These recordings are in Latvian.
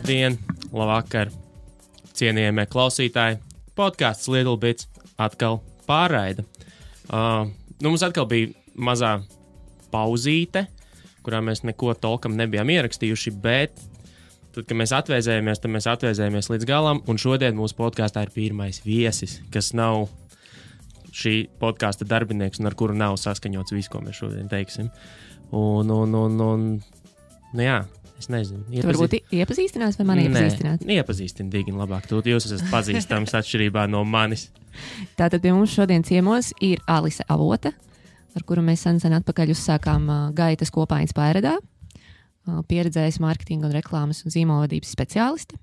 Labdien, labvakar, cienījamie klausītāji. Podcasts Little Bits atkal pārraida. Mums atkal bija mazā pauzīte, kurā mēs neko tolkam nebijām ierakstījuši, bet tad, kad mēs atvēzējāmies, tad mēs atvēzējāmies līdz galam, un šodien mūsu podkāstā ir pirmais viesis, kas nav šī podkāsta darbinieks un ar kuru nav saskaņots viss, ko mēs šodien teiksim. Nu jā, es nezinu. Tu varbūt iepazīstinās vai mani iepazīstināt? Nē, iepazīstini Digini labāk. Jūs esat pazīstams atšķirībā no manis. Tātad pie mums šodien ciemos ir Alise Avota, ar kuru mēs sen atpakaļ uzsākām gaitas kopaiņas pārredā. Pieredzējis mārketinga un reklāmas un zīmolvadības speciāliste.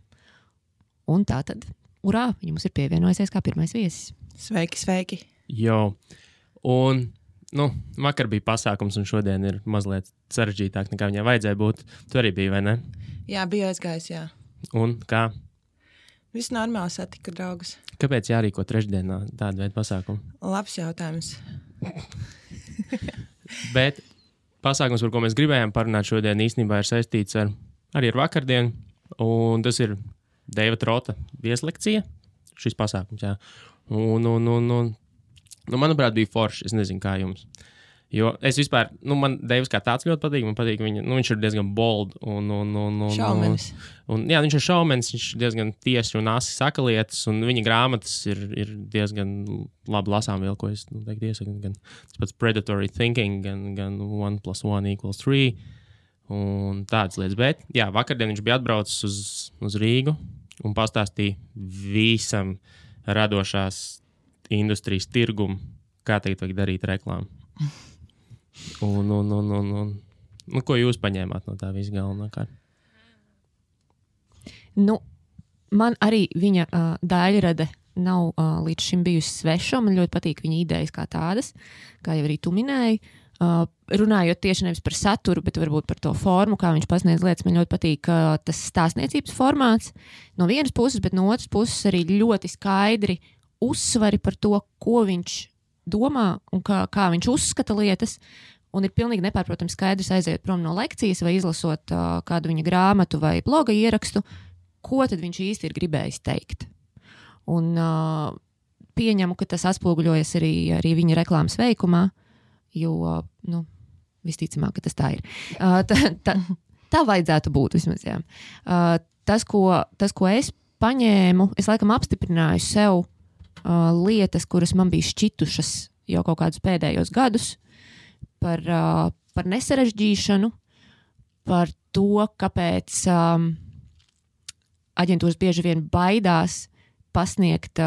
Un tātad, urā, viņa mums ir pievienojusies kā pirmais viesis. Sveiki, sveiki. Jo, un vakar bija pasākums, un šodien ir mazliet sarežģītāk, nekā viņai vajadzēja būt. Tu arī biji, vai ne? Jā, biju aizgājis, jā. Un kā? Viss normāli, satika draugus. Kāpēc jārīko trešdienā tādu veidu pasākumu? Labs jautājums. Bet pasākums, par ko mēs gribējām parunāt šodien, īstenībā ir saistīts arī ar vakardienu, un tas ir Deiva Trota vieslekcija, šis pasākums, jā. Manuprāt, bija forši. Es nezinu, kā jums. Jo es vispār, man Deivs kā tāds ļoti patīk. Man patīk viņa, viņš ir diezgan bold. Šaumenis. Jā, viņš ir šaumenis, viņš ir diezgan tieši un asi saka lietas, un viņa grāmatas ir diezgan labi lasām vēl, ko es teiktu iesaku. Gan tas pats Predatory Thinking, gan 1 + 1 = 3, un tādas lietas. Bet, jā, vakardien viņš bija atbraucis uz Rīgu un pastāstīja visam radošās industrijas tirgumu, kā tagad vajag darīt reklāmu. Ko jūs paņēmāt no tā visu galvenākārt? Man arī viņa daļrade nav līdz šim bijusi sveša. Man ļoti patīk viņa idejas kā tādas, kā jau arī tu minēji. Runājot tieši nevis par saturu, bet varbūt par to formu, kā viņš pasniedz lietas. Man ļoti patīk tas stāstniecības formāts no vienas puses, bet no otras puses arī ļoti skaidri uzsvari par to, ko viņš domā un kā viņš uzskata lietas, un ir pilnīgi nepārprotams skaidrs aiziet prom no lekcijas vai izlasot kādu viņa grāmatu vai bloga ierakstu, ko tad viņš īsti ir gribējis teikt. Un pieņemu, ka tas atspoguļojas arī viņa reklāmas veikumā, jo, visticamāk, ka tas tā ir. Tā vajadzētu būt vismaz, jā. Tas, ko es paņēmu, es laikam apstiprināju sev lietas, kuras man bija šķitušas jau kaut kādus pēdējos gadus, par nesarežģīšanu, par to, kāpēc aģentūras bieži vien baidās pasniegt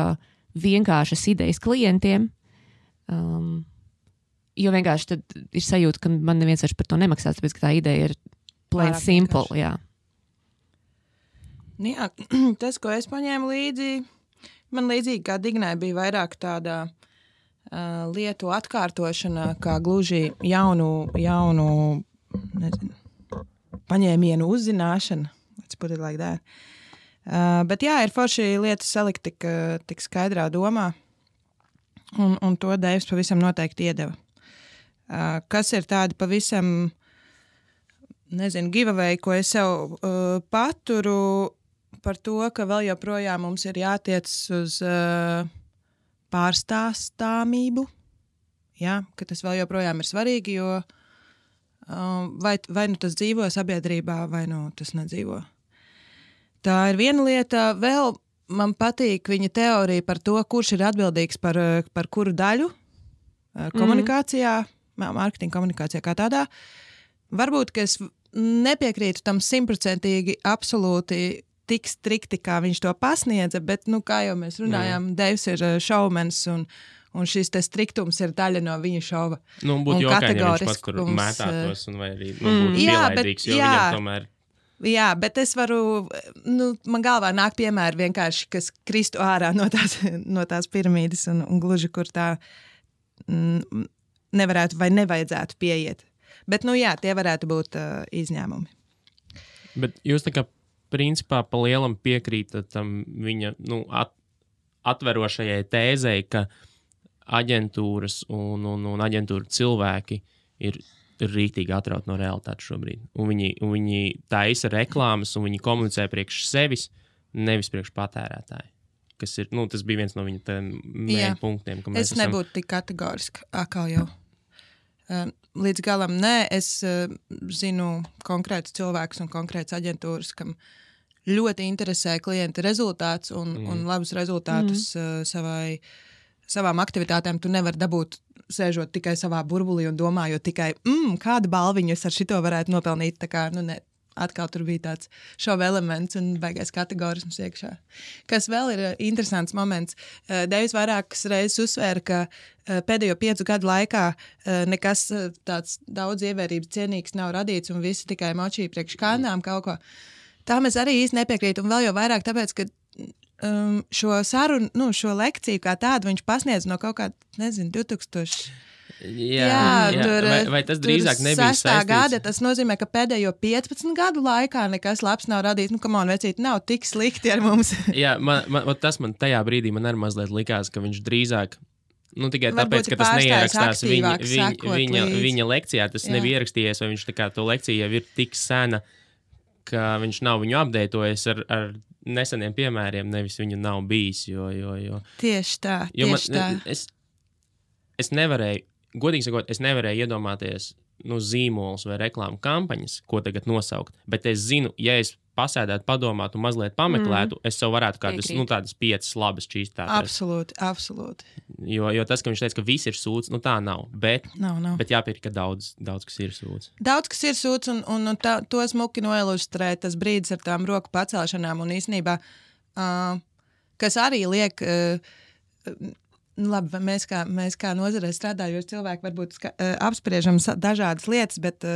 vienkāršas idejas klientiem, jo vienkārši tad ir sajūta, ka man neviens vairs par to nemaksās, tāpēc, ka tā ideja ir plain simple, jā. Jā, tas, ko es paņēmu līdzi, man līdzīgi kā Dignai bija vairāk tāda lietu atkārtošana, kā gluži jaunu nezinu, paņēmienu uzzināšana. Let's put it like that. Bet jā, ir forši lietas salikt tik skaidrā domā, un to Deivs pavisam noteikti iedeva. Kas ir tādi pavisam, nezinu, giveaway, ko es sev paturu par to, ka vēl joprojām mums ir jātiec uz pārstāstāmību, ja, ka tas vēl joprojām ir svarīgi, jo vai nu tas dzīvo sabiedrībā, vai nu tas nedzīvo. Tā ir viena lieta. Vēl man patīk viņa teorija par to, kurš ir atbildīgs par kuru daļu komunikācijā, mārketinga komunikācijā kā tādā. Varbūt, ka es nepiekrītu tam 100% absolūti tik strikti, kā viņš to pasniedza, bet, kā jau mēs runājām, Deivs ir šaumens, un šis te striktums ir daļa no viņa šova. Būtu jokaini, ja viņš pats, kur mētātos, un vai arī būtu pielaidīgs, jo viņam tomēr... Jā, bet es varu, man galvā nāk piemēri vienkārši, kas kristu ārā no tās piramīdas, un gluži, kur tā nevarētu vai nevajadzētu pieiet. Bet, jā, tie varētu būt izņēmumi. Bet jūs tā kā principā pa lielam piekrītat tam viņa atverošajai tēzei, ka aģentūras un aģentūra cilvēki ir ir rīktīgi atraut no realitātes šobrīd. Un viņi taisa reklāmas, un viņi komunicē priekš sevis, nevis priekš patērētāju. Kas ir, tas bija viens no viņa mēģi punktiem. Es nebūtu tik kategoriski, atkal jau. Līdz galam nē, es zinu konkrētus cilvēkus un konkrētas aģentūras, kam ļoti interesē klienta rezultāts un labus rezultātus savām aktivitātēm. Tu nevari dabūt sēžot tikai savā burbulī un domājot tikai, kādu balviņu es ar šito varētu nopelnīt. Tā kā, ne. Atkal tur bija tāds šova elements un baigais kategorisms iekšā. Kas vēl ir interesants moments. Deivis vairākas reizes uzsvēra, ka pēdējo 5 gadu laikā nekas tāds daudz ievērības cienīgs nav radīts un visi tikai močī priekš kādām kaut ko. Tā mēs arī īsti nepiekrīt un vēl jau vairāk tāpēc, ka šo sarunu, šo lekciju kā tādu viņš pasniedz no kaut kā, 2000... Jā, vai tas drīzāk nebija saistīts? Gada, tas nozīmē, ka pēdējo 15 gadu laikā nekas labs nav radīts. Vecīt, nav tik slikti ar mums. Jā, tas man tajā brīdī man arī mazliet likās, ka viņš drīzāk, tikai tāpēc, ka tas neierakstās viņa lekcijā, tas nebija ierakstījies, vai viņš tā kā to lekciju jau ir tik sena, ka viņš nav viņu updatojis ar neseniem piemēriem, nevis viņu nav bijis, jo. Tieši tā. Es nevarēju, godīgi sakot, iedomāties zīmolus vai reklāmu kampaņas, ko tagad nosaukt, bet es zinu, ja es pasēdētu, padomātu un mazliet pameklētu, es sev varētu kādas, tādas 5 labas čīstātas. Absolūti. Jo tas, ka viņš teica, ka viss ir sūds, tā nav, bet jāpierika, ka daudz kas ir sūds. Daudz kas ir sūds un to smuki noilustrē tas brīdis ar tām roku pacelšanām un īstenībā, kas arī liek... Labi, mēs kā nozarē strādājoši cilvēki varbūt apspriežam dažādas lietas, bet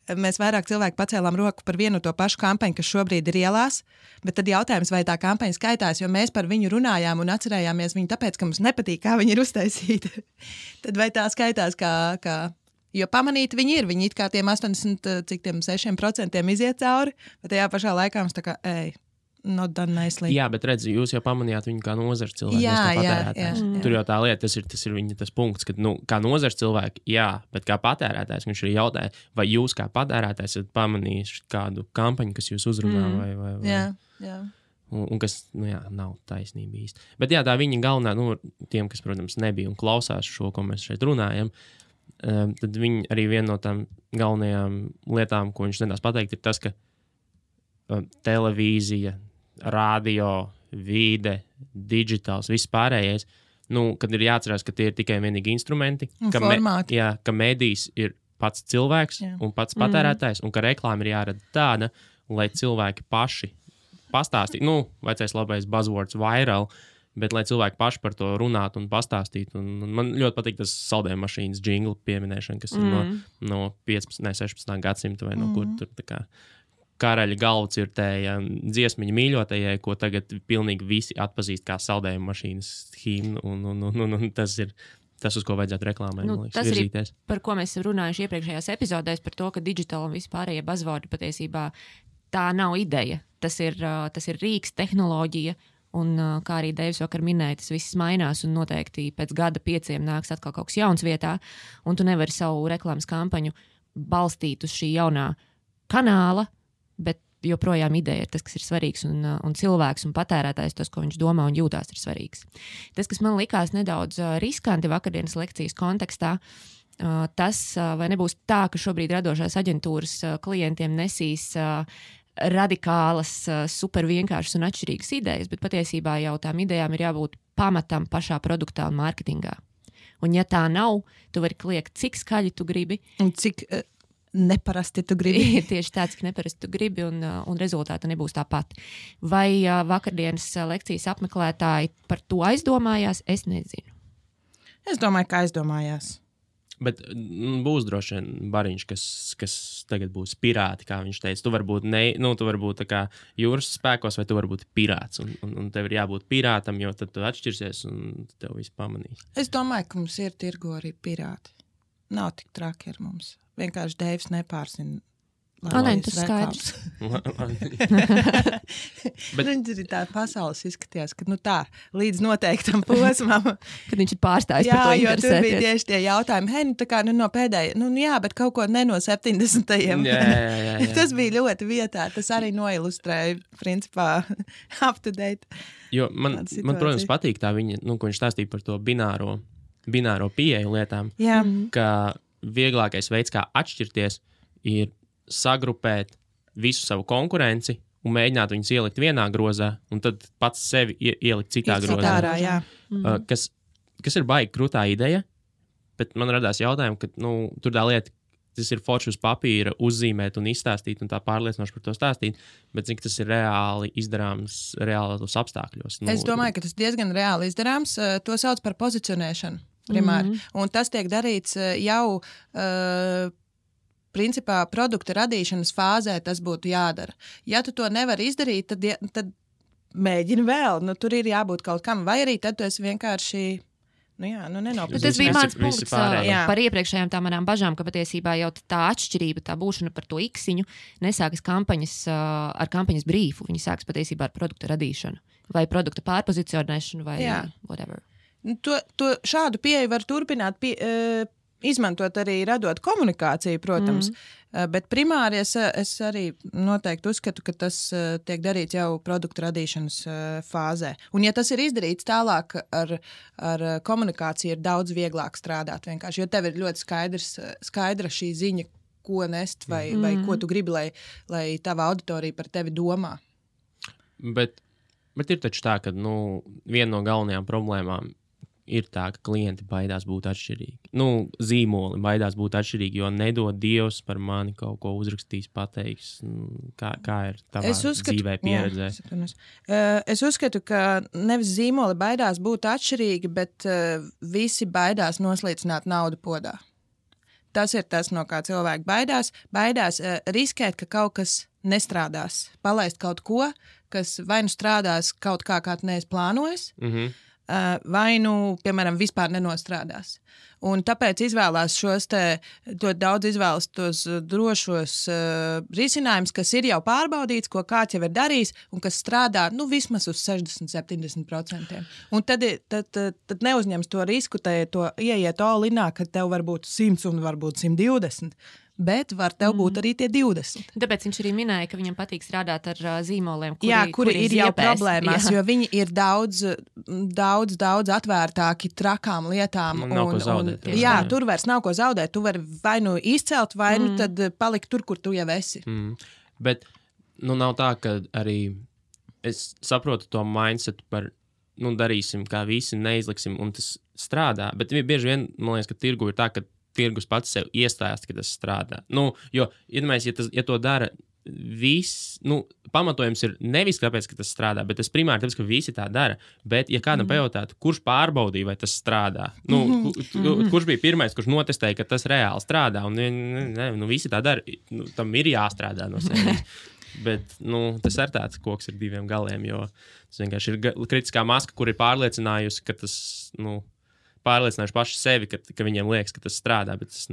mēs vairāk cilvēki pacēlām roku par vienu to pašu kampaņu, kas šobrīd ir ielās, bet tad jautājums, vai tā kampaņa skaitās, jo mēs par viņu runājām un atcerējāmies viņu tāpēc, ka mums nepatīk, kā viņa ir uztaisīta. Tad vai tā skaitās kā jo pamanīt viņi ir, viņi it kā tiem 86% iziet cauri, bet tajā pašā laikā mums tā kā, not done nicely. Jā, bet redzi, jūs jau pamanījāt viņu kā nozars cilvēku. Jā. Tur jau tā lieta, tas ir viņa tas punkts, ka, kā nozars cilvēki, jā, bet kā patērētājs, viņš arī jautāja, vai jūs kā patērētājs esat pamanījuši kādu kampaņu, kas jūs uzrunā vai. Jā. Un kas, nav taisnība īsti. Bet jā, tā viņa galvenā, tiem, kas, protams, nebija un klausās šo, ko mēs šeit runājam, tad viņa arī viena no tām galvenajām lietām, ko viņš nedās pateikt, ir tas, ka televīzija, radio, vide, digitāls, viss pārējais, kad ir jāatcerās, ka tie ir tikai vienīgi instrumenti, ka medijs ir pats cilvēks un pats patērētājs, un ka reklāma ir jārada tāda, lai cilvēki paši pastāstītu, vecais labais buzzwords viral, bet lai cilvēki paši par to runātu un pastāstītu. Un man ļoti patīk tas saldējuma mašīnas džinglu pieminēšana, kas ir no 15. 16. gadsimta vai no kur tur tā kā karaļa galvu cirtēja dziesmiņa mīļotajai, ko tagad pilnīgi visi atpazīst kā saldējuma mašīnas himnu, un tas ir tas, uz ko vajadzētu reklāmai, tas virzīties. Ir, par ko mēs runājuši iepriekšējās epizodēs, par to, ka digitāli un vispārējie buzzwordi patiesībā tā nav ideja. Tas ir rīks, tehnoloģija, un kā arī Deivis vakar minēja, tas viss mainās, un noteikti pēc gada 5 nāks atkal kaut kas jauns vietā, un tu nevari savu reklāmas kampaņu balstīt uz šī jaunā kanāla, bet joprojām ideja ir tas, kas ir svarīgs, un cilvēks un patērētājs, tas, ko viņš domā un jūtās, ir svarīgs. Tas, kas man likās nedaudz riskanti vakardienas lekcijas kontekstā, tas vai nebūs tā, ka šobrīd radošās aģentūras klientiem nesīs radikālas, super vienkāršas un atšķirīgas idejas, bet patiesībā jau tām idejām ir jābūt pamatam pašā produktā un mārketingā. Un ja tā nav, tu vari kliegt, cik skaļi tu gribi. Un cik neparasti tu gribi. Tieši tā, cik neparasti tu gribi, un rezultāti nebūs tāpat. Vai vakardienas lekcijas apmeklētāji par to aizdomājās? Es nezinu. Es domāju, ka aizdomājās. Bet būs droši vien bariņš, kas tagad būs pirāti, kā viņš teica. Tu vari būt tā kā jūras spēkos, vai tu vari būt pirāts. Un tev ir jābūt pirātam, jo tad tu atšķirsies un tev viss pamanīs. Es domāju, ka mums ir tirgo arī pirāti. Nav tik traki ar mums. Vienkārši Deivs nepārzina Nē, tas skaidrs. Bet tā pasaules izskatījās, ka tā, līdz noteiktam posmam. Kad viņš ir pārstājis par to Jā, jo tur bija interesēties. tieši tie jautājumi, hei, tā kā no pēdējā, jā, bet kaut ko ne no 70. Jā. Tas bija ļoti vietā, tas arī noilustrēja, principā, up to date. Jo man, protams, patīk tā viņa, ko viņš stāstīja par to bināro pieeju lietām, Jā. ka vieglākais veids, kā atšķirties, ir sagrupēt visu savu konkurenci un mēģināt viņus ielikt vienā grozā, un tad pats sevi ielikt citā grozā. Citārā, jā. Kas ir baigi krūtā ideja, bet man radās jautājumi, ka tur tā lieta, tas ir forši uz papīra uzzīmēt un izstāstīt un tā pārliecinoši par to stāstīt, bet cik tas ir reāli izdarāms reālos apstākļos. Es domāju, ka tas diezgan reāli izdarāms. To sauc par pozicionēšanu primāri. Un tas tiek darīts jau principā produkta radīšanas fāzē tas būtu jādara. Ja tu to nevari izdarīt, tad mēģini vēl. Tur ir jābūt kaut kam. Vai arī tad tu esi vienkārši nenopratīs. Tas bija mans punkts pārējie. par iepriekšējām tā manām bažām, ka patiesībā jau tā atšķirība, tā būšana par to iksiņu nesākas ar kampaņas brīfu. Viņi sākas patiesībā ar produkta radīšanu vai produkta pārpozicionēšanu vai whatever. Šādu pieeju var turpināt izmantot arī radot komunikāciju, protams, bet primāri es arī noteikti uzskatu, ka tas tiek darīts jau produktu radīšanas fāzē. Un ja tas ir izdarīts tālāk ar komunikāciju, ir daudz vieglāk strādāt vienkārši, jo tev ir ļoti skaidra šī ziņa, ko nest vai ko tu gribi, lai tava auditorija par tevi domā. Bet ir taču tā, ka viena no galvenajām problēmām ir tā, ka klienti baidās būt atšķirīgi. Zīmoli baidās būt atšķirīgi, jo nedod Dievs par mani kaut ko uzrakstīs, pateiks. Kā ir tavā dzīvē pieredzē? Es uzskatu, ka nevis zīmoli baidās būt atšķirīgi, bet visi baidās noslīcināt naudu podā. Tas ir tas, no kā cilvēki baidās. Baidās riskēt, ka kaut kas nestrādās. Palaist kaut ko, kas vai nu strādās kaut kā tu neesi plānojis, vai piemēram, vispār nenostrādās. Un tāpēc izvēlās ļoti daudz izvēlas tos drošos risinājumus, kas ir jau pārbaudīts, ko kāds jau ir darījis un kas strādā vismaz uz 60-70%. Un tad neuzņems to risku, to ieiet all-inā, ka tev var būt 100 un varbūt 120. Bet var tev būt arī tie 20. Tāpēc viņš arī minēja, ka viņam patīk strādāt ar zīmoliem, kuri ir jau problēmās, jo viņi ir daudz atvērtāki trakām lietām. Nav ko zaudēt. Tur vairs nav ko zaudēt. Tu vari vai nu izcelt, vai nu tad palikt tur, kur tu jau esi. Bet nav tā, ka arī es saprotu to mindsetu par darīsim, kā visi neizliksim, un tas strādā. Bet bieži vien, man liekas, ka tirgu ir tā, ka tirgus pats sev iestājas, ka tas strādā. Jo, ja to dara viss, pamatojums ir nevis tāpēc, ka tas strādā, bet tas primāri tāpēc, ka visi tā dara. Bet, ja kādam pajautātu, kurš pārbaudīja, vai tas strādā? Kurš bija pirmais, kurš notestēja, ka tas reāli strādā? Un visi tā dara. Tam ir jāstrādā no sevis. Bet tas ir tāds koks ar diviem galiem, jo tas vienkārši ir kritiskā maska, kur ir pārliecinājusi, ka tas, pārliecinājuši paši sevi, ka viņiem liekas, ka tas strādā, bet tas,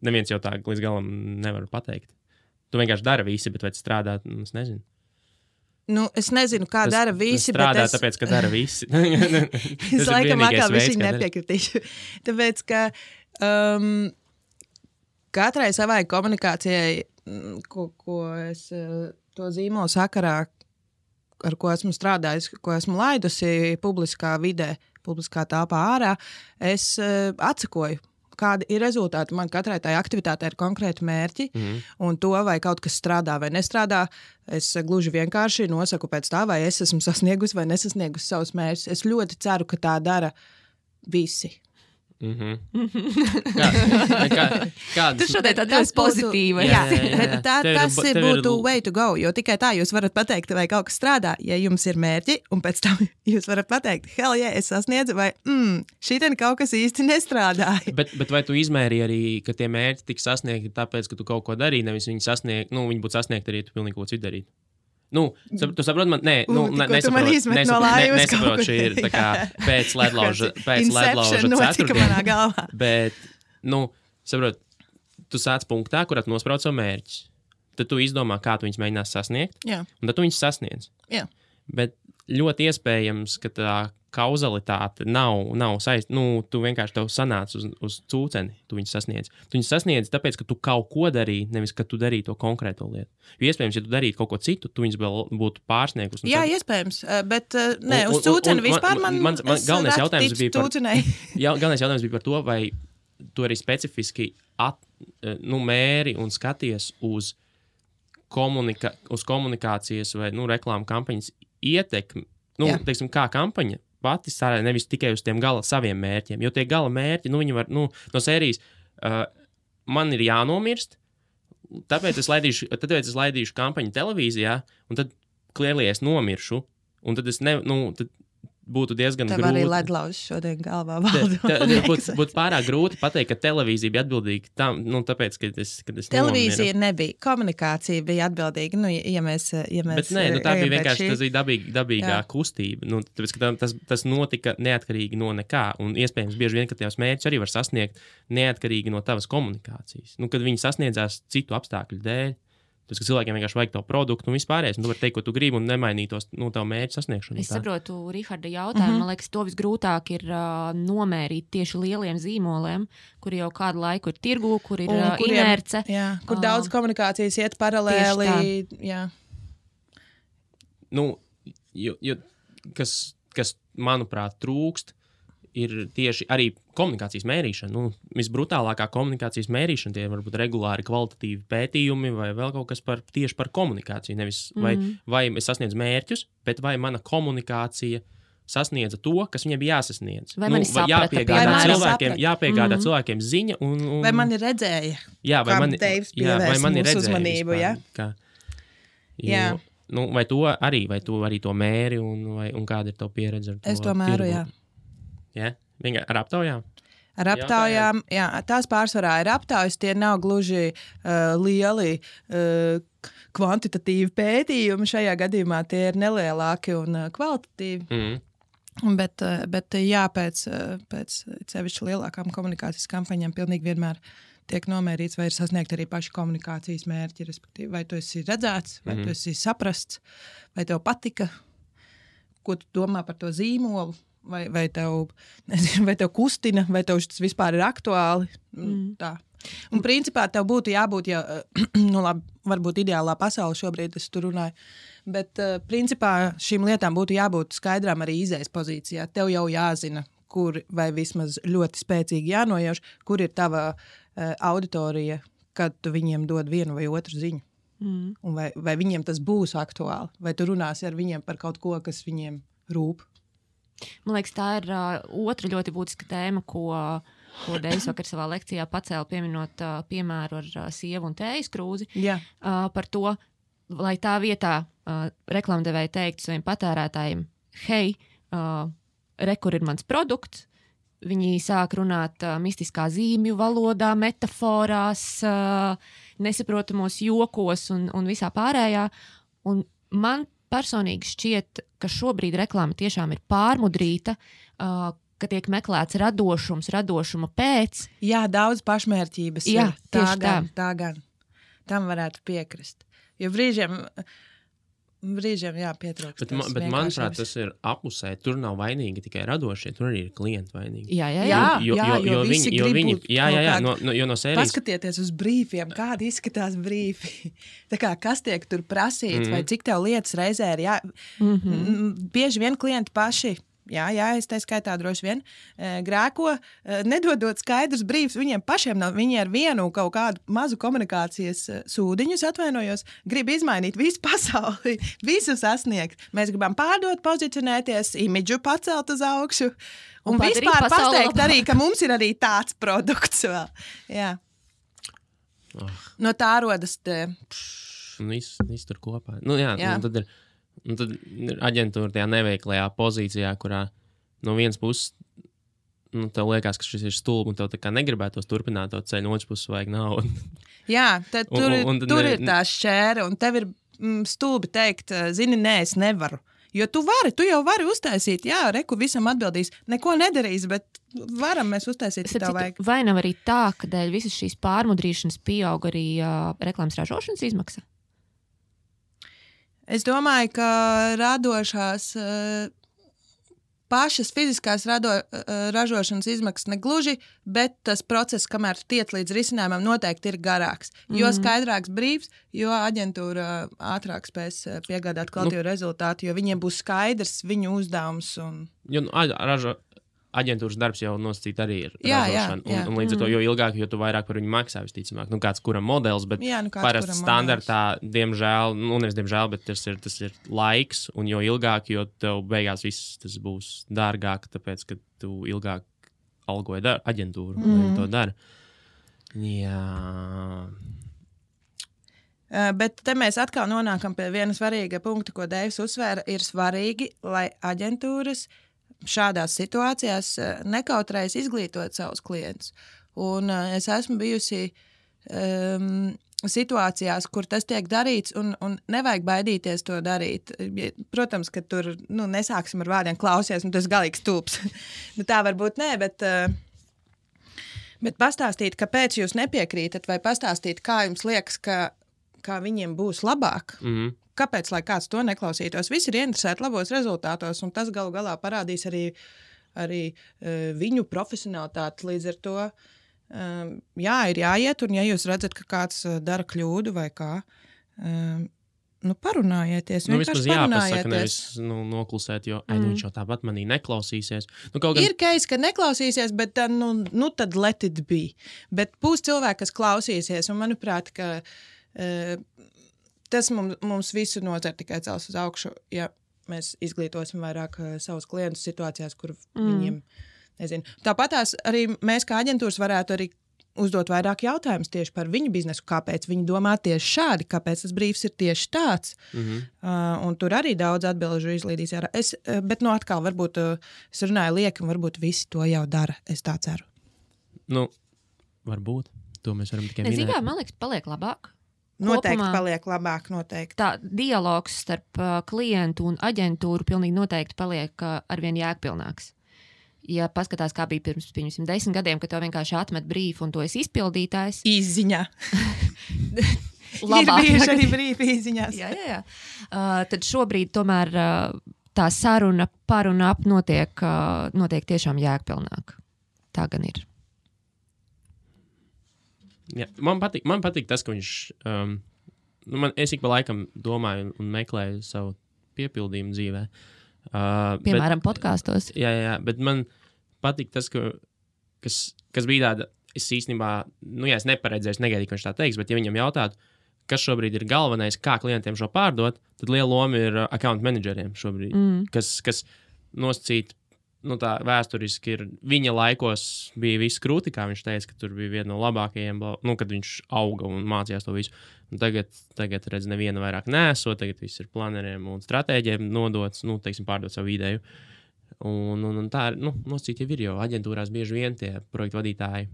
neviens jau tā līdz galam nevar pateikt. Tu vienkārši dara visi, bet vai tas strādā, es nezinu. Es nezinu, kā dara visi, bet strādā, es... tāpēc, ka dara visi. Es laikam atkal viņš nepiekritīšu. Tāpēc, ka katrai savai komunikācijai, ko es to zīmolu sakarā, ar ko esmu strādājis, ko esmu laidusi publiskā vidē, publiskā telpā ārā, es atsakoju, kādi ir rezultāti. Man katrai tai aktivitātei ir konkrēti mērķi, un to, vai kaut kas strādā vai nestrādā, es gluži vienkārši nosaku pēc tā, vai es esmu sasniegusi vai nesasniegusi savus mērķus. Es ļoti ceru, ka tā dara visi. Tu šodien tāds pozitīva. Tas būtu way to go, jo tikai tā jūs varat pateikt, vai kaut kas strādā, ja jums ir mērķi, un pēc tam jūs varat pateikt, hell yeah, es sasniedzu, vai šitien kaut kas īsti nestrādāja. Bet vai tu izmēri arī, ka tie mērķi tika sasniegti tāpēc, ka tu kaut ko darīji, nevis viņi būtu sasniegti arī, tu pilnīgi ko citu darītu? Tu saproti, man nesaprot, šī ir tā kā pēc ledlauža ceturtdiena. Bet, saprot, tu sāc punktā, kurā tu nosprauc savu mērķi. tad tu izdomā, kā tu viņus mēģinās sasniegt, Jā. un tad tu viņus sasniedz. Jā. Bet ļoti iespējams, ka tā kauzalitāte nav saistīta. Nu, tu vienkārši tev sanāc uz cūceni, tu viņus sasniedz. Tu viņus sasniedz tāpēc, ka tu kaut ko darīji, nevis, ka tu darīji to konkrēto lietu. Jo iespējams, ja tu darītu kaut ko citu, tu viņus vēl būtu pārsniegus. Jā, iespējams, bet ne, uz cūceni vispār man galvenais jautājums bija cūcenei. Galvenais jautājums bija par to, vai tu arī specifiski mēri un skaties uz komunikācijas vai reklāmu kampaņas ietekmi. Teiksim, kā kampaņa pati strādā nevis tikai uz tiem gala saviem mērķiem, jo tie gala mērķi, viņi var, no sērijas, man ir jānomirst, tāpēc es laidīšu kampaņu televīzijā, un tad klierli es nomiršu, un tad es tad būtu diezgan grūti. Tev arī ledlauzs šodien galvā valda. Būtu pārāk grūti pateikt, ka televīzija bija atbildīga tam, tāpēc, ka es televīzija nebija, komunikācija bija atbildīga, ja mēs Bet nē, tā bija vienkārši, tas bija dabīgā kustība, tāpēc, ka tas notika neatkarīgi no nekā, un iespējams bieži vien, ka tavs mērķis arī var sasniegt neatkarīgi no tavas komunikācijas. Kad viņi sasniedzās citu apstākļu dēļ, tas, ka cilvēkiem vienkārši vajag to produktu un vispārējais, un tu vari teikt, ko tu gribi un nemainītos tavu mērķu sasniegšanu. Es saprotu Riharda jautājumu. Man liekas, to visgrūtāk ir nomērīt tieši lieliem zīmoliem, kuri jau kādu laiku ir tirgū, kur ir inerce. Jā, kur daudz komunikācijas iet paralēli. Jā. Kas, manuprāt, trūkst, ir tieši arī komunikācijas mērīšana. Visbrutālākā komunikācijas mērīšana, tie varbūt regulāri kvalitatīvi pētījumi vai vēl kaut kas tieši par komunikāciju. Nevis vai es sasniedzu mērķus, bet vai mana komunikācija sasniedza to, kas viņai bija jāsasniedz. Vai mani saprata, jāpiegādā cilvēkiem ziņa. Vai mani redzēja? Jā, vai mani redzēja uzmanību, jā? Vai tu arī to mēri un kāda ir tava pieredze ar to? Es to mēru, jā. Ja? Ar aptaujām? Ar aptaujām, jā, tās pārsvarā ir aptaujas, tie nav gluži lieli kvantitatīvi pētījumi. Šajā gadījumā tie ir nelielāki un kvalitatīvi. Bet jā, pēc sevišķi lielākām komunikācijas kampaņām pilnīgi vienmēr tiek nomērīts, vai ir sasniegt arī paši komunikācijas mērķi, respektīvi, vai tu esi redzēts, vai tu esi saprasts, vai tev patika, ko tu domā par to zīmolu. Vai tev kustina, vai tev tas vispār ir aktuāli. Tā. Un principā tev būtu jābūt, varbūt ideālā pasaule šobrīd es tur runāju, bet principā šīm lietām būtu jābūt skaidrām arī izējas pozīcijā. Tev jau jāzina, kur vai vismaz ļoti spēcīgi jānojauš, kur ir tava auditorija, kad tu viņiem dod vienu vai otru ziņu. Un vai viņiem tas būs aktuāli, vai tu runāsi ar viņiem par kaut ko, kas viņiem rūp. Man liekas, tā ir otra ļoti būtiska tēma, ko Deivis vakar savā lekcijā pacēla, pieminot piemēru ar sievu un tējas krūzi. Par to, lai tā vietā reklāmdevēji teikt saviem patērētājiem, hei, kur ir mans produkts, viņi sāk runāt mistiskā zīmju valodā, metaforās, nesaprotamos jokos un visā pārējā. Un man personīgi šķiet, ka šobrīd reklāma tiešām ir pārmudrīta, ka tiek meklēts radošuma pēc. Jā, daudz pašmērķības. Jā, tā gan. Tam varētu piekrist. Jo brīžiem pietrūkst. Bet manuprāt, tas ir apusē. Tur nav vainīgi tikai radošie, tur arī ir klienti vainīgi. Jo visi grib no sērijas. Paskatieties uz brīfiem, kādi izskatās brīfi. Tā kā, kas tiek tur prasīts, vai cik tev lietas reizē ir bieži vien klienti paši. Jā, es tā skaitā droši vien grēko, nedodot skaidrs brīvs viņiem pašiem nav. Viņi ar vienu kaut kādu mazu komunikācijas sūdiņus, atvainojos, grib izmainīt visu pasauli, visu sasniegt. Mēs gribam pārdot, pozicionēties, imidžu pacelt uz augšu un vispār pateikt arī, ka mums ir arī tāds produkts vēl. Jā. No tā rodas te... Viss tur kopā. Tad ir... Un tad ir aģentūra tajā neveiklajā pozīcijā, kurā no vienas puses tev liekas, ka šis ir stulbi un tev tā kā negribētos turpināt to ceļu, no otras puses vajag naudu. Jā, tad tur ir tā šķēra un tev ir stulbi teikt, zini, nē, es nevaru. Jo tu jau vari uztaisīt, kur visam atbildīs, neko nedarīs, bet varam mēs uztaisīt, ja tev vajag. Vai nav arī tā, ka dēļ visas šīs pārmudrīšanas pieaug arī reklāmas ražošanas izmaksa? Es domāju, ka radošās pašas fiziskās ražošanas izmaksas negluži, bet tas process, kamēr tu tiec līdz risinājumam, noteikti ir garāks. Jo skaidrāks brīvs, jo aģentūra ātrāk spēs piegādāt kvalitīvu rezultātu, jo viņiem būs skaidrs viņu uzdevums. Aģentūras darbs jau nosacīt arī ir ražošana. Jā. Un līdz ar to, jo ilgāk, jo tu vairāk par viņu maksā, visticamāk. Kāds kuram modelis, bet parasti standartā, diemžēl, nevis diemžēl, bet tas ir laiks, un jo ilgāk, jo tev beigās viss tas būs dārgāk, tāpēc, ka tu ilgāk algoji aģentūru, lai to dara. Jā. Bet te mēs atkal nonākam pie viena svarīga punkta, ko Deivs uzsvēra, ir svarīgi, lai aģentūras šādās situācijās nekautrējas izglītot savus klientus. Un es esmu bijusi situācijās, kur tas tiek darīts, un nevajag baidīties to darīt. Protams, ka tur nesāksim ar vārdiem klausies, un tas galīgs stulbs. Tā varbūt nē, bet pastāstīt, kāpēc jūs nepiekrītat, vai pastāstīt, kā jums liekas, kā viņiem būs labāk. Kāpēc, lai kāds to neklausītos? Visi ir ieinteresēti labos rezultātos, un tas galu galā parādīs arī viņu profesionalitāti. Līdz ar to, ir jāiet, un ja jūs redzat, ka kāds dara kļūdu vai kā, parunājieties. Vismaz jāpasaka, nevis noklusēt, jo viņš jau tāpat manī neklausīsies. Ir case, ka neklausīsies, bet tad let it be. Bet būs cilvēki, kas klausīsies, un manuprāt, ka tas mums visu nozara tikai cels uz augšu, ja mēs izglītosim vairāk savus klientus situācijās, kur viņiem, nezinu. Tāpatās arī mēs kā aģentūras varētu arī uzdot vairāk jautājumus tieši par viņu biznesu, kāpēc viņi domā tieši šādi, kāpēc tas brīvs ir tieši tāds. Un tur arī daudz atbilžu izlīdīs. Bet atkal, varbūt es runāju lieki, un varbūt visi to jau dara. Es tā ceru. Varbūt. To mēs varam tikai minēt. Man liekas, paliek labāk. Noteikti paliek labāk, noteikti. Tā dialogs starp klientu un aģentūru pilnīgi noteikti paliek arvien jēgpilnāks. Ja paskatās, kā bija pirms 10 gadiem, kad tev vienkārši atmet brīfu un to esi izpildītājs. Īsziņā. Labāk. Ir bijuši arī brīfi īsziņās. Jā. Tad šobrīd tomēr tā saruna par un ap notiek tiešām jēgpilnāk. Tā gan ir. Jā, man patīk tas, ka viņš, es ik pa laikam domāju un meklēju savu piepildījumu dzīvē. Piemēram, podkastos. Jā, bet man patīk tas, kas bija tāda, es īstenībā, es neparedzēju, negaidīju, ka viņš tā teiks, bet ja viņam jautātu, kas šobrīd ir galvenais, kā klientiem šo pārdot, tad liela loma ir account manageriem šobrīd, kas nosacīt, tā vēsturiski ir, viņa laikos bija viss krūti, kā viņš teica, ka tur bija viena no labākajiem, kad viņš auga un mācījās to visu. Un tagad redz, neviena vairāk nesot, tagad viss ir planeriem un stratēģiem nodots, pārdot savu ideju. Un tā ir, nosacīt jau ir, jo aģentūrās bieži vien tie projektu vadītāji,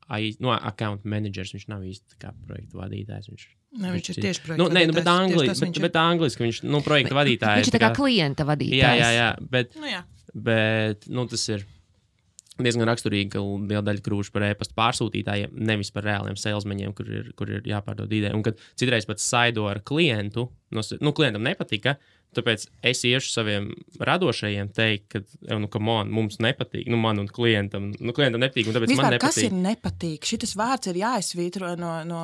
account managers, viņš nav īsti kā projektu vadītājs, viņš ir tieši projektu vadītājs. Bet angliski viņš, projektu vadītājs. Viņš ir tā kā klienta vadītājs. Jā, bet tas ir diezgan raksturīgi, ka liela daļa krūšu par e-pasta pārsūtītājiem, nevis par reāliem salesmeņiem, kur ir jāpārdod ideja. Un kad citreiz pat saido ar klientu, klientam nepatika, tāpēc es iešu saviem radošajiem teikt, ka, mums nepatīk, man un klientam nepatīk, un tāpēc vispār, man nepatīk. Kas ir nepatīk? Šitas vārds ir jāizsvītro no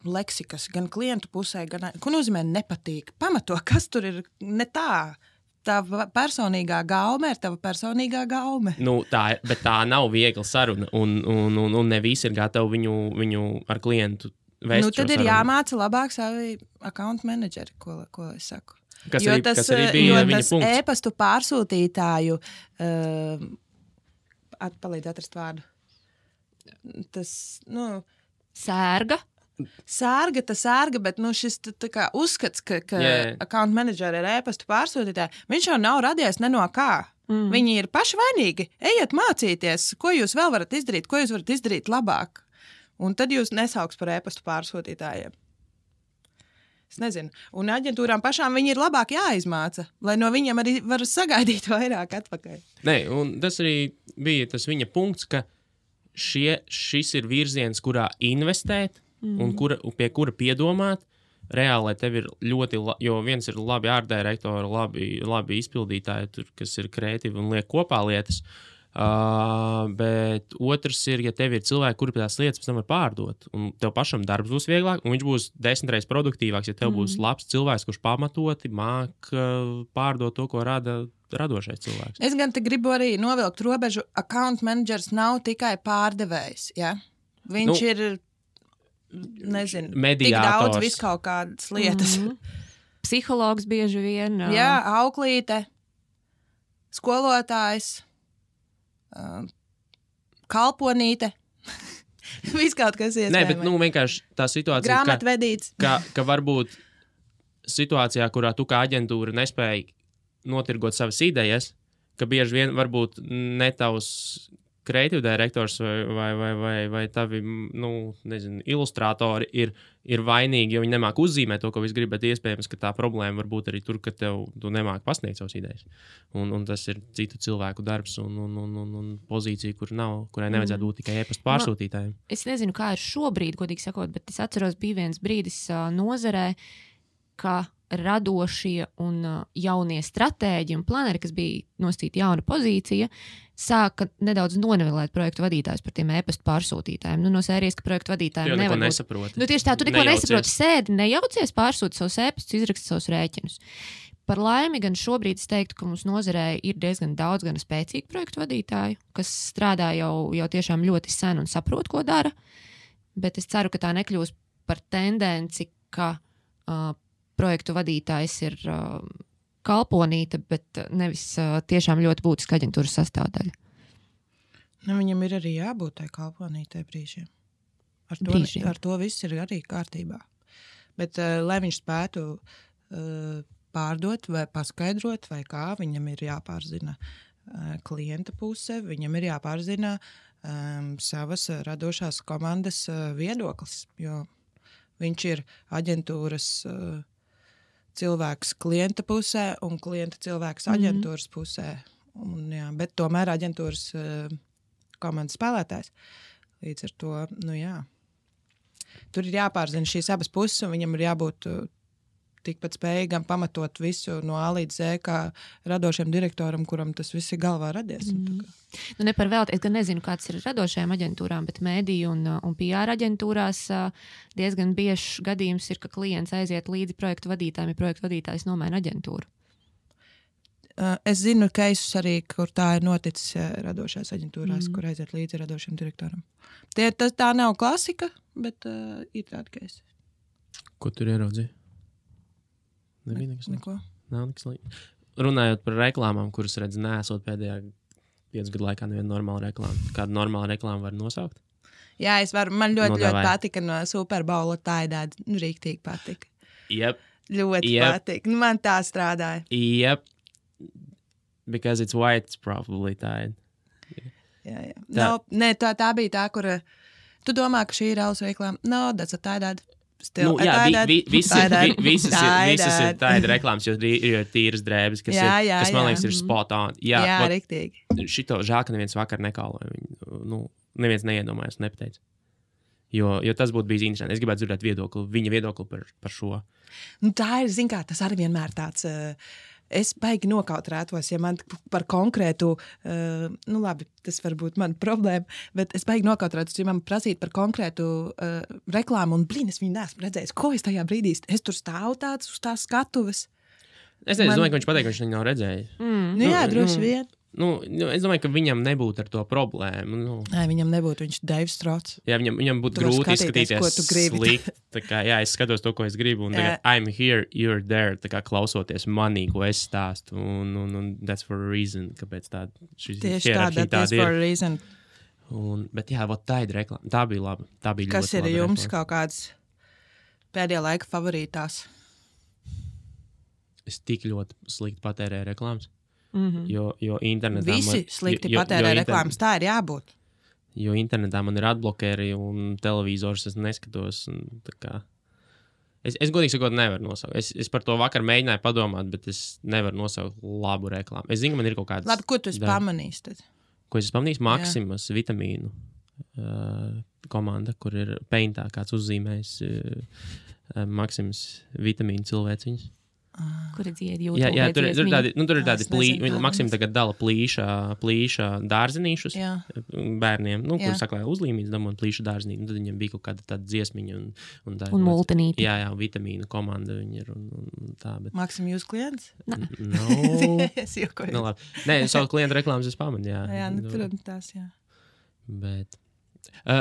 leksikas, gan klientu pusē, gan, ko nozīmē nepatīk? Pamato, kas tur ir ne tā? Tava personīgā gaume ir tava personīgā gaume. Bet tā nav viegla saruna, un ne visi ir gatavi viņu ar klientu vēst. Tad ir jāmāca labāk savi account manageri, ko es saku. Kas arī bija viņa punkts. E-pastu pārsūtītāju, palīdz atrast vārdu. Tas, Sērga, bet šis tā kā uzskats, ka account manageri ir e-pastu pārsūtītāji, viņš jau nav radies ne no kā. Viņi ir paši vainīgi. Ejiet mācīties, ko jūs vēl varat izdarīt, ko jūs varat izdarīt labāk. Un tad jūs nesauks par e-pastu pārsūtītājiem. Es nezinu. Un aģentūrām pašām viņi ir labāk jāizmāca, lai no viņiem arī var sagaidīt vairāk atpakaļ. Un tas arī bija tas viņa punkts, ka šis ir virziens, kurā investēt, un pie kura piedomāt, reāli, lai tev ir ļoti, jo viens ir labi ārdirektori, labi izpildītāji, tur, kas ir kreatīvi un liek kopā lietas, bet otrs ir, ja tev ir cilvēki, kuri tās lietas pēc tam var pārdot, un tev pašam darbs būs vieglāk, un viņš būs 10 reizes produktīvāks, ja tev būs labs cilvēks, kurš pamatoti māk pārdot to, ko rada radošais cilvēks. Es gan te gribu arī novilkt robežu, account managers nav tikai pārdevējs, ja? Viņš ir, nezinu, tik daudz viskaut kādas lietas. Psihologs bieži vien. Jā, auklīte, skolotājs, kalponīte, viskaut kas iespējams. Nē, bet vienkārši tā situācija, grāmatvedīts. ka varbūt situācijā, kurā tu kā aģentūra nespēji notirgot savas idejas, ka bieži vien varbūt ne tavs kreatīvu direktors vai tavi, nezinu, ilustrātori ir vainīgi, jo viņi nemāk uzzīmēt to, ko viss grib, bet iespējams, ka tā problēma var būt arī tur, ka tu nemāk pasniegt savas idejas. Un tas ir citu cilvēku darbs un pozīcija, kurai nevajadzētu būt tikai e-pasta pārsūtītājiem. Es nezinu, kā ir šobrīd, godīgi sakot, bet es atceros, bija viens brīdis nozarē, ka radošie un jaunie stratēģi un planeri, kas bija nosacīta jauna pozīcija, sāka nedaudz nonivelēt projektu vadītājus par tiem e-pasta pārsūtītājiem. No sērijas, ka projektu vadītājiem nevar būt. Tieši tā, tu neko nesaproti, sēdi, nejaucies, pārsūti savus e-pastus, izraksti savus rēķinus. Par laimi gan šobrīd es teiktu, ka mums nozarē ir diezgan daudz gan spēcīgu projektu vadītāju, kas strādā jau tiešām ļoti sen un saprot, ko dara, bet es ceru, ka tā nekļūs par tendenci, ka projektu vadītājs ir kalponīte, bet nevis tiešām ļoti būtiska aģentūras sastāvdaļa. Viņam ir arī jābūt tai kalponītei brīžiem. Ar to viss ir arī kārtībā. Bet, lai viņš spētu pārdot vai paskaidrot, vai kā, viņam ir jāpārzina klienta puse, viņam ir jāpārzina savas radošās komandas viedoklis, jo viņš ir aģentūras cilvēks klienta pusē un klienta cilvēks aģentūras pusē. Jā, bet tomēr aģentūras komandas spēlētājs. Līdz ar to, tur ir jāpārzina šīs abas puses, un viņam ir jābūt tikpat spējīgam pamatot visu no A līdz Z, kā radošiem direktoram, kuram tas viss ir galvā radies. Ne par velti, es gan nezinu, kāds ir radošajām aģentūrām, bet mediju un PR aģentūrās diezgan biežs gadījums ir, ka klients aiziet līdzi projektu vadītājiem, ja projektu vadītājs nomaina aģentūru. Es zinu keisus arī, kur tā ir noticis radošās aģentūrās, kur aiziet līdzi radošiem direktoram. Tā nav klasika, bet ir tāda keisa. Ko tur ieraudzīja? Neko. Nav nekas līdz. Runājot par reklāmām, kuras redz neesot pēdējā 5 gadu laikā neviena normāla reklāma. Kādu normālu reklāmu var nosaukt? Jā, es varu. Man ļoti patika no Super Bowla Taidāda. Rīktīgi patika. Yep. Ļoti patika. Man tā strādāja. Yep. Because it's white, it's probably Tide. Jā. Tā bija tā, kur tu domā, ka šī ir alus reklāma. No, that's a Taidāda. Visas ir tāda reklāmas, jo ir tīras drēbes, kas man liekas ir spot on. Jā, riktīgi. Šito žēl, ka neviens vakar nekāloja. Neviens neiedomājas, nepateica. Jo tas būtu bijis interesanti. Es gribētu dzirdēt viņa viedokli par šo. Tā ir, zin kā, tas arī vienmēr tāds... Es baigi nokautrētos, ja man par konkrētu, labi, tas var būt mana problēma, bet es baigi nokautrētos, ja man prasīt par konkrētu reklāmu, un es viņu neesmu redzējis. Ko es tajā brīdī? Es tur stāvu tāds uz tās skatuves. Es domāju, ka viņš pateica, ka viņš viņu nav redzējis. Jā, droši vien. Es domāju, ka viņam nebūtu ar to problēmu. Nē, viņam nebūtu, viņš Deivs Strots. Jā, viņam būtu grūti izskatīties slikt. Es skatos to, ko es gribu, un tagad I'm here, you're there, klausoties manī, ko es stāstu, un that's for a reason, kāpēc tāda tieši that's for a reason. Bet jā, tā ir reklāma. Tā bija laba. Tā bija kas ir jums reklāma. Kaut kāds pēdējā laika favorītās? Es tik ļoti slikti patērēju reklāmas. Jo internetā visi slikti patērē reklāmas, tā ir jābūt. Jo internetā man ir atblokēri un televizors es neskatos. Es godīgi sakot nevaru nosaukt. Es par to vakar mēģināju padomāt, bet es nevaru nosaukt labu reklāmu. Es zinu, ka man ir kaut kāds... Labi, ko tu esi pamanījis tad? Ko es pamanīju? Maximas vitamīnu komanda, kur ir Paintā kāds uzzīmējis Maksims vitamīnu cilvēciņas. Kuri dzied YouTube? Jā, tur ir tādi nezinu, Maksims tagad dala plīša dārzenīšus bērniem, kur saklāja uzlīmītas damot plīša dārzenīti, tad viņiem bija kaut kāda tāda dziesmiņa un multinīti. Jā, vitamīnu komanda viņi ir un tā, bet... Maksim, jūs klients? No. Es jokoju. No, labi. Nē, savu klientu reklāmas es pamanu, jā. Jā, tur tās, jā. Bet...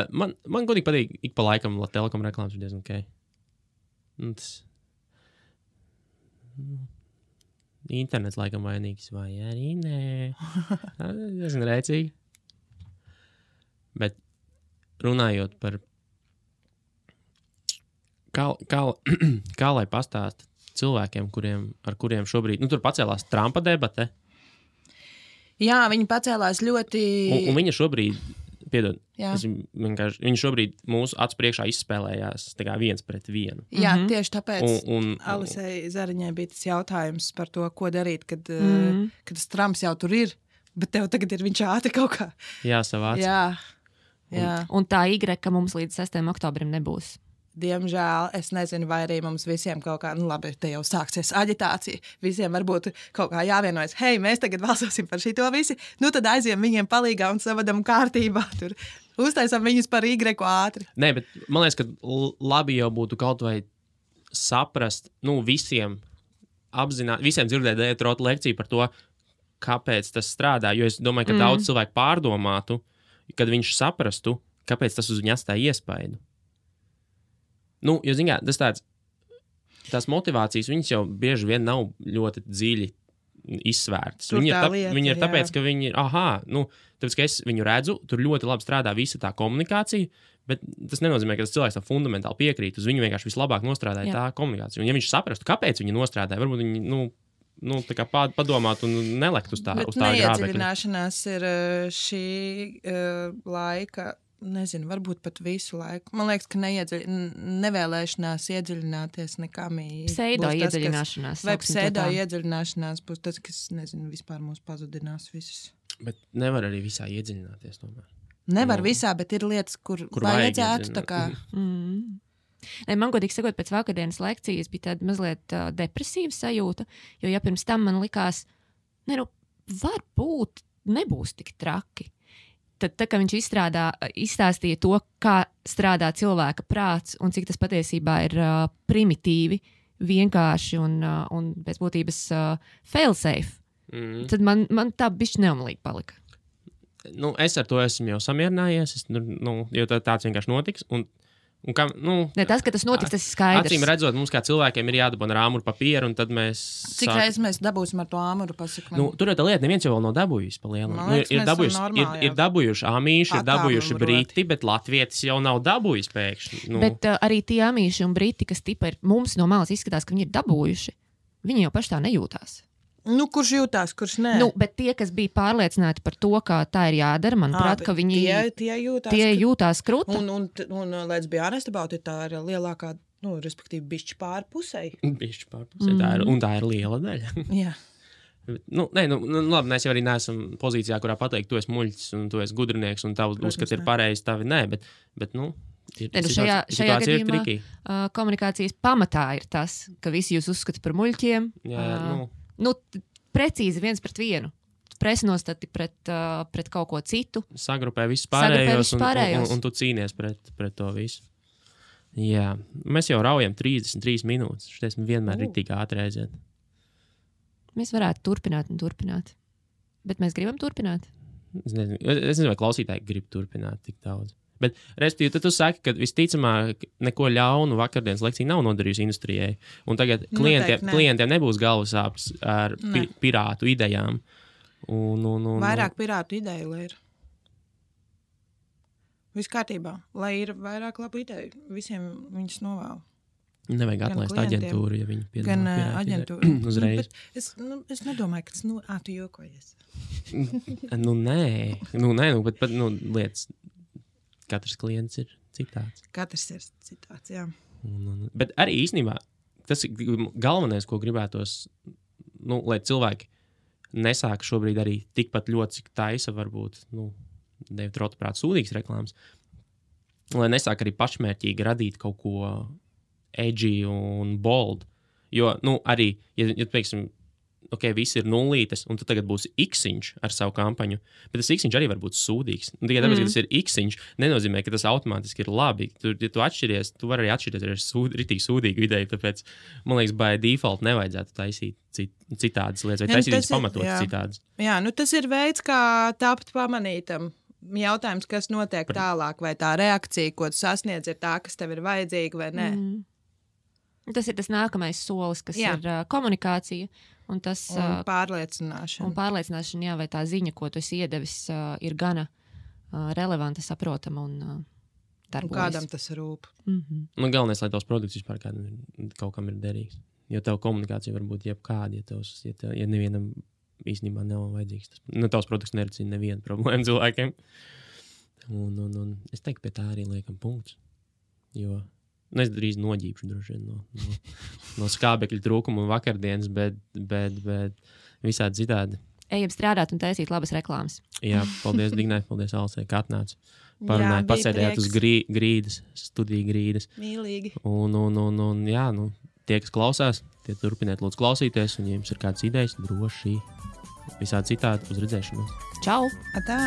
man godīgi patīk ik pa laikam Telekom reklāmas ir diezgan ok. Tas... Internets laikam vainīgs, vai arī nē. Diezgan rēcīgi. Bet runājot par kā lai pastāst cilvēkiem, ar kuriem šobrīd, tur pacēlās Trumpa debate. Jā, viņi pacēlās ļoti... Un viņa šobrīd, piedod, viņi šobrīd mūsu acu priekšā izspēlējās tā kā 1-1. Jā, tieši tāpēc Alisei Zariņai bija tas jautājums par to, ko darīt, kad tas Trumps jau tur ir, bet tev tagad ir viņš ātri kaut kā. Jāsavāc. Jā. Un tā ka mums līdz 6. oktobrim nebūs. Diemžēl, es nezinu, vai arī mums visiem kaut kā, labi, te jau sāksies aģitācija, visiem varbūt kaut kā jāvienojas, hei, mēs tagad balsosim par šito visi, tad aiziem viņiem palīgā un savadam kārtībā, tur uztaisam viņus par Y ātri. Nē, bet man liekas, ka labi jau būtu kaut vai saprast, visiem apzināt, visiem dzirdēt Dētrota lekciju par to, kāpēc tas strādā, jo es domāju, ka daudz cilvēku pārdomātu, kad viņš saprastu, kāpēc tas uz viņu atstāja iespaidu. Jo, zināmā, tās motivācijas, viņas jau bieži vien nav ļoti dziļi izsvērtas. Viņi ir tāpēc, ka viņi ir, tāpēc, ka es viņu redzu, tur ļoti labi strādā visa tā komunikācija, bet tas nenozīmē, ka tas cilvēks tā fundamentāli piekrīt, uz viņu vienkārši vislabāk nostrādāja tā komunikācija. Un ja viņš saprastu, kāpēc viņi nostrādāja, varbūt viņi tā kā padomāt un nelekt uz tā grābekļa. Bet neiedziļināšanās ir šī laika... Nezinu, varbūt pat visu laiku. Man liekas, ka nevēlēšanās iedziļināties nekam. Pseido iedziļināšanās. Vai pseido iedziļināšanās būs tas, kas, nezinu, vispār mūs pazudinās visus. Bet nevar arī visā iedziļināties tomēr. Nevar visā, bet ir lietas, kur vajadzētu tā kā... Man godīgi sakot, pēc vakardienas lekcijas bija tāda mazliet depresīva sajūta, jo ja pirms tam man likās, varbūt nebūs tik traki. Tad, kā viņš izstāstīja to, kā strādā cilvēka prāts un cik tas patiesībā ir primitīvi, vienkārši un pēc būtības fail-safe, tad man tā bišķi neumlīgi palika. Es ar to esmu jau samierinājies, jo tāds vienkārši notiks. Tas, ka tas notiks, tas ir skaidrs. Acīm redzot, mums kā cilvēkiem ir jādabana ar āmuru papīru, un tad mēs... Cik reizes mēs dabūsim ar to āmuru pasaka? Tur ir tā lieta, neviens jau vēl nav dabūjis pa lielam. Ir dabūjuši amīši, ir dabūjuši briti, bet latvietis jau nav dabūjis pēkšņi. Bet arī tie amīši un briti, kas tipa ir mums no malas izskatās, ka viņi ir dabūjuši, viņi jau paši tā nejūtās. Kurš jūtās, kurš nē? Bet tie, kas bija pārliecināti par to, ka tā ir jādara, manuprāt, ka viņi tie jūtās kruta. Un let's be honest about it, tā ir lielākā, respektīvi, bišķi pārpusei. Bišķi pārpusei, tā ir liela daļa. Jā. Labi, mēs jau arī neesam pozīcijā, kurā pateikt, tu esi muļķis un tu esi gudrinieks un tavu uzskat ir pareizi, tavi nē, bet šajā gadījumā komunikācijas pamatā ir tas, ka visi jūs uzskata par muļķiem. Precīzi 1-1. Presnostati pret kaut ko citu. Sagrupē visus pārējos un tu cīnies pret to visu. Jā, mēs jau raujam 33 minūtes. Šies vienmēr ir tik ātri aiziet. Mēs varētu turpināt. Bet mēs gribam turpināt. Es nezinu, vai klausītāji grib turpināt tik daudz. Bet, respektīvi, tad tu saki, ka visticamāk neko ļaunu vakardienas lekcija nav nodarījusi industrijai. Un tagad klientiem nebūs galvasāpes ar pirātu idejām. Vairāk pirātu ideju, lai ir. Viss kārtībā. Lai ir vairāk labu ideju. Visiem viņas novēlu. Nevajag atlaist aģentūru, ja viņi piedāvā gan aģentūru. Uzreiz. Es nedomāju, ka tas tu jokojies. Nē, bet lietas... Katrs klients ir citāds. Jā. Bet arī īstenībā tas ir galvenais, ko gribētos, lai cilvēki nesāk šobrīd arī tikpat ļoti, cik taisa varbūt, Dētrota prāt sūdīgas reklāmas, lai nesāk arī pašmērķīgi radīt kaut ko edgy un bold. Jo, arī, ja teiksim, visi ir nullītes, un tu tagad būsi X-iņš ar savu kampaņu, bet tas X-iņš arī var būt sūdīgs. Un tikai tāpēc, ka tas ir X-iņš, nenozīmē, ka tas automātiski ir labi. Ja tu atšķiries, tu vari arī atšķirties ar ritīgi sūdīgu ideju, tāpēc, man liekas, by default nevajadzētu taisīt citādas lietas, vai taisīt viņas pamatot citādas. Jā, tas ir veids, kā tapt pamanītam. Jautājums, kas notiek tālāk, vai tā reakcija, ko tu sasniedz, ir tā, kas tev ir vajadzīga vai nē. Tas ir tas nākamais solis, kas ir komunikācija. Un tas pārliecināšana. Un pārliecināšana, jā, vai tā ziņa, ko tu esi iedevis, ir gana relevanta, saprotama un darbojas. Un kādam tas rūp. Galvenais, lai tavs produkts vispār kaut kam ir derīgs. Jo tev komunikācija var būt jebkāda, ja nevienam īstenībā nav vajadzīgs. Tavs produkts nerisina nevienu problēmu cilvēkiem. Un es teiktu, pie tā arī liekam punkts. Jo es drīz noģīpšu droši vien no skābekļa trūkuma un vakardienas, bet visādi citādi. Ejam strādāt un taisīt labas reklāmas. Jā, paldies Dignai, paldies Alisai, ka atnāca. Parunājāt, pasēdējāt uz grīdas, studiju grīdas. Mīlīgi. Un jā, tie, kas klausās, tie turpiniet lūdzu klausīties, un ja jums ir kādas idejas, droši visādi citādi uz redzēšanos. Čau! Atā!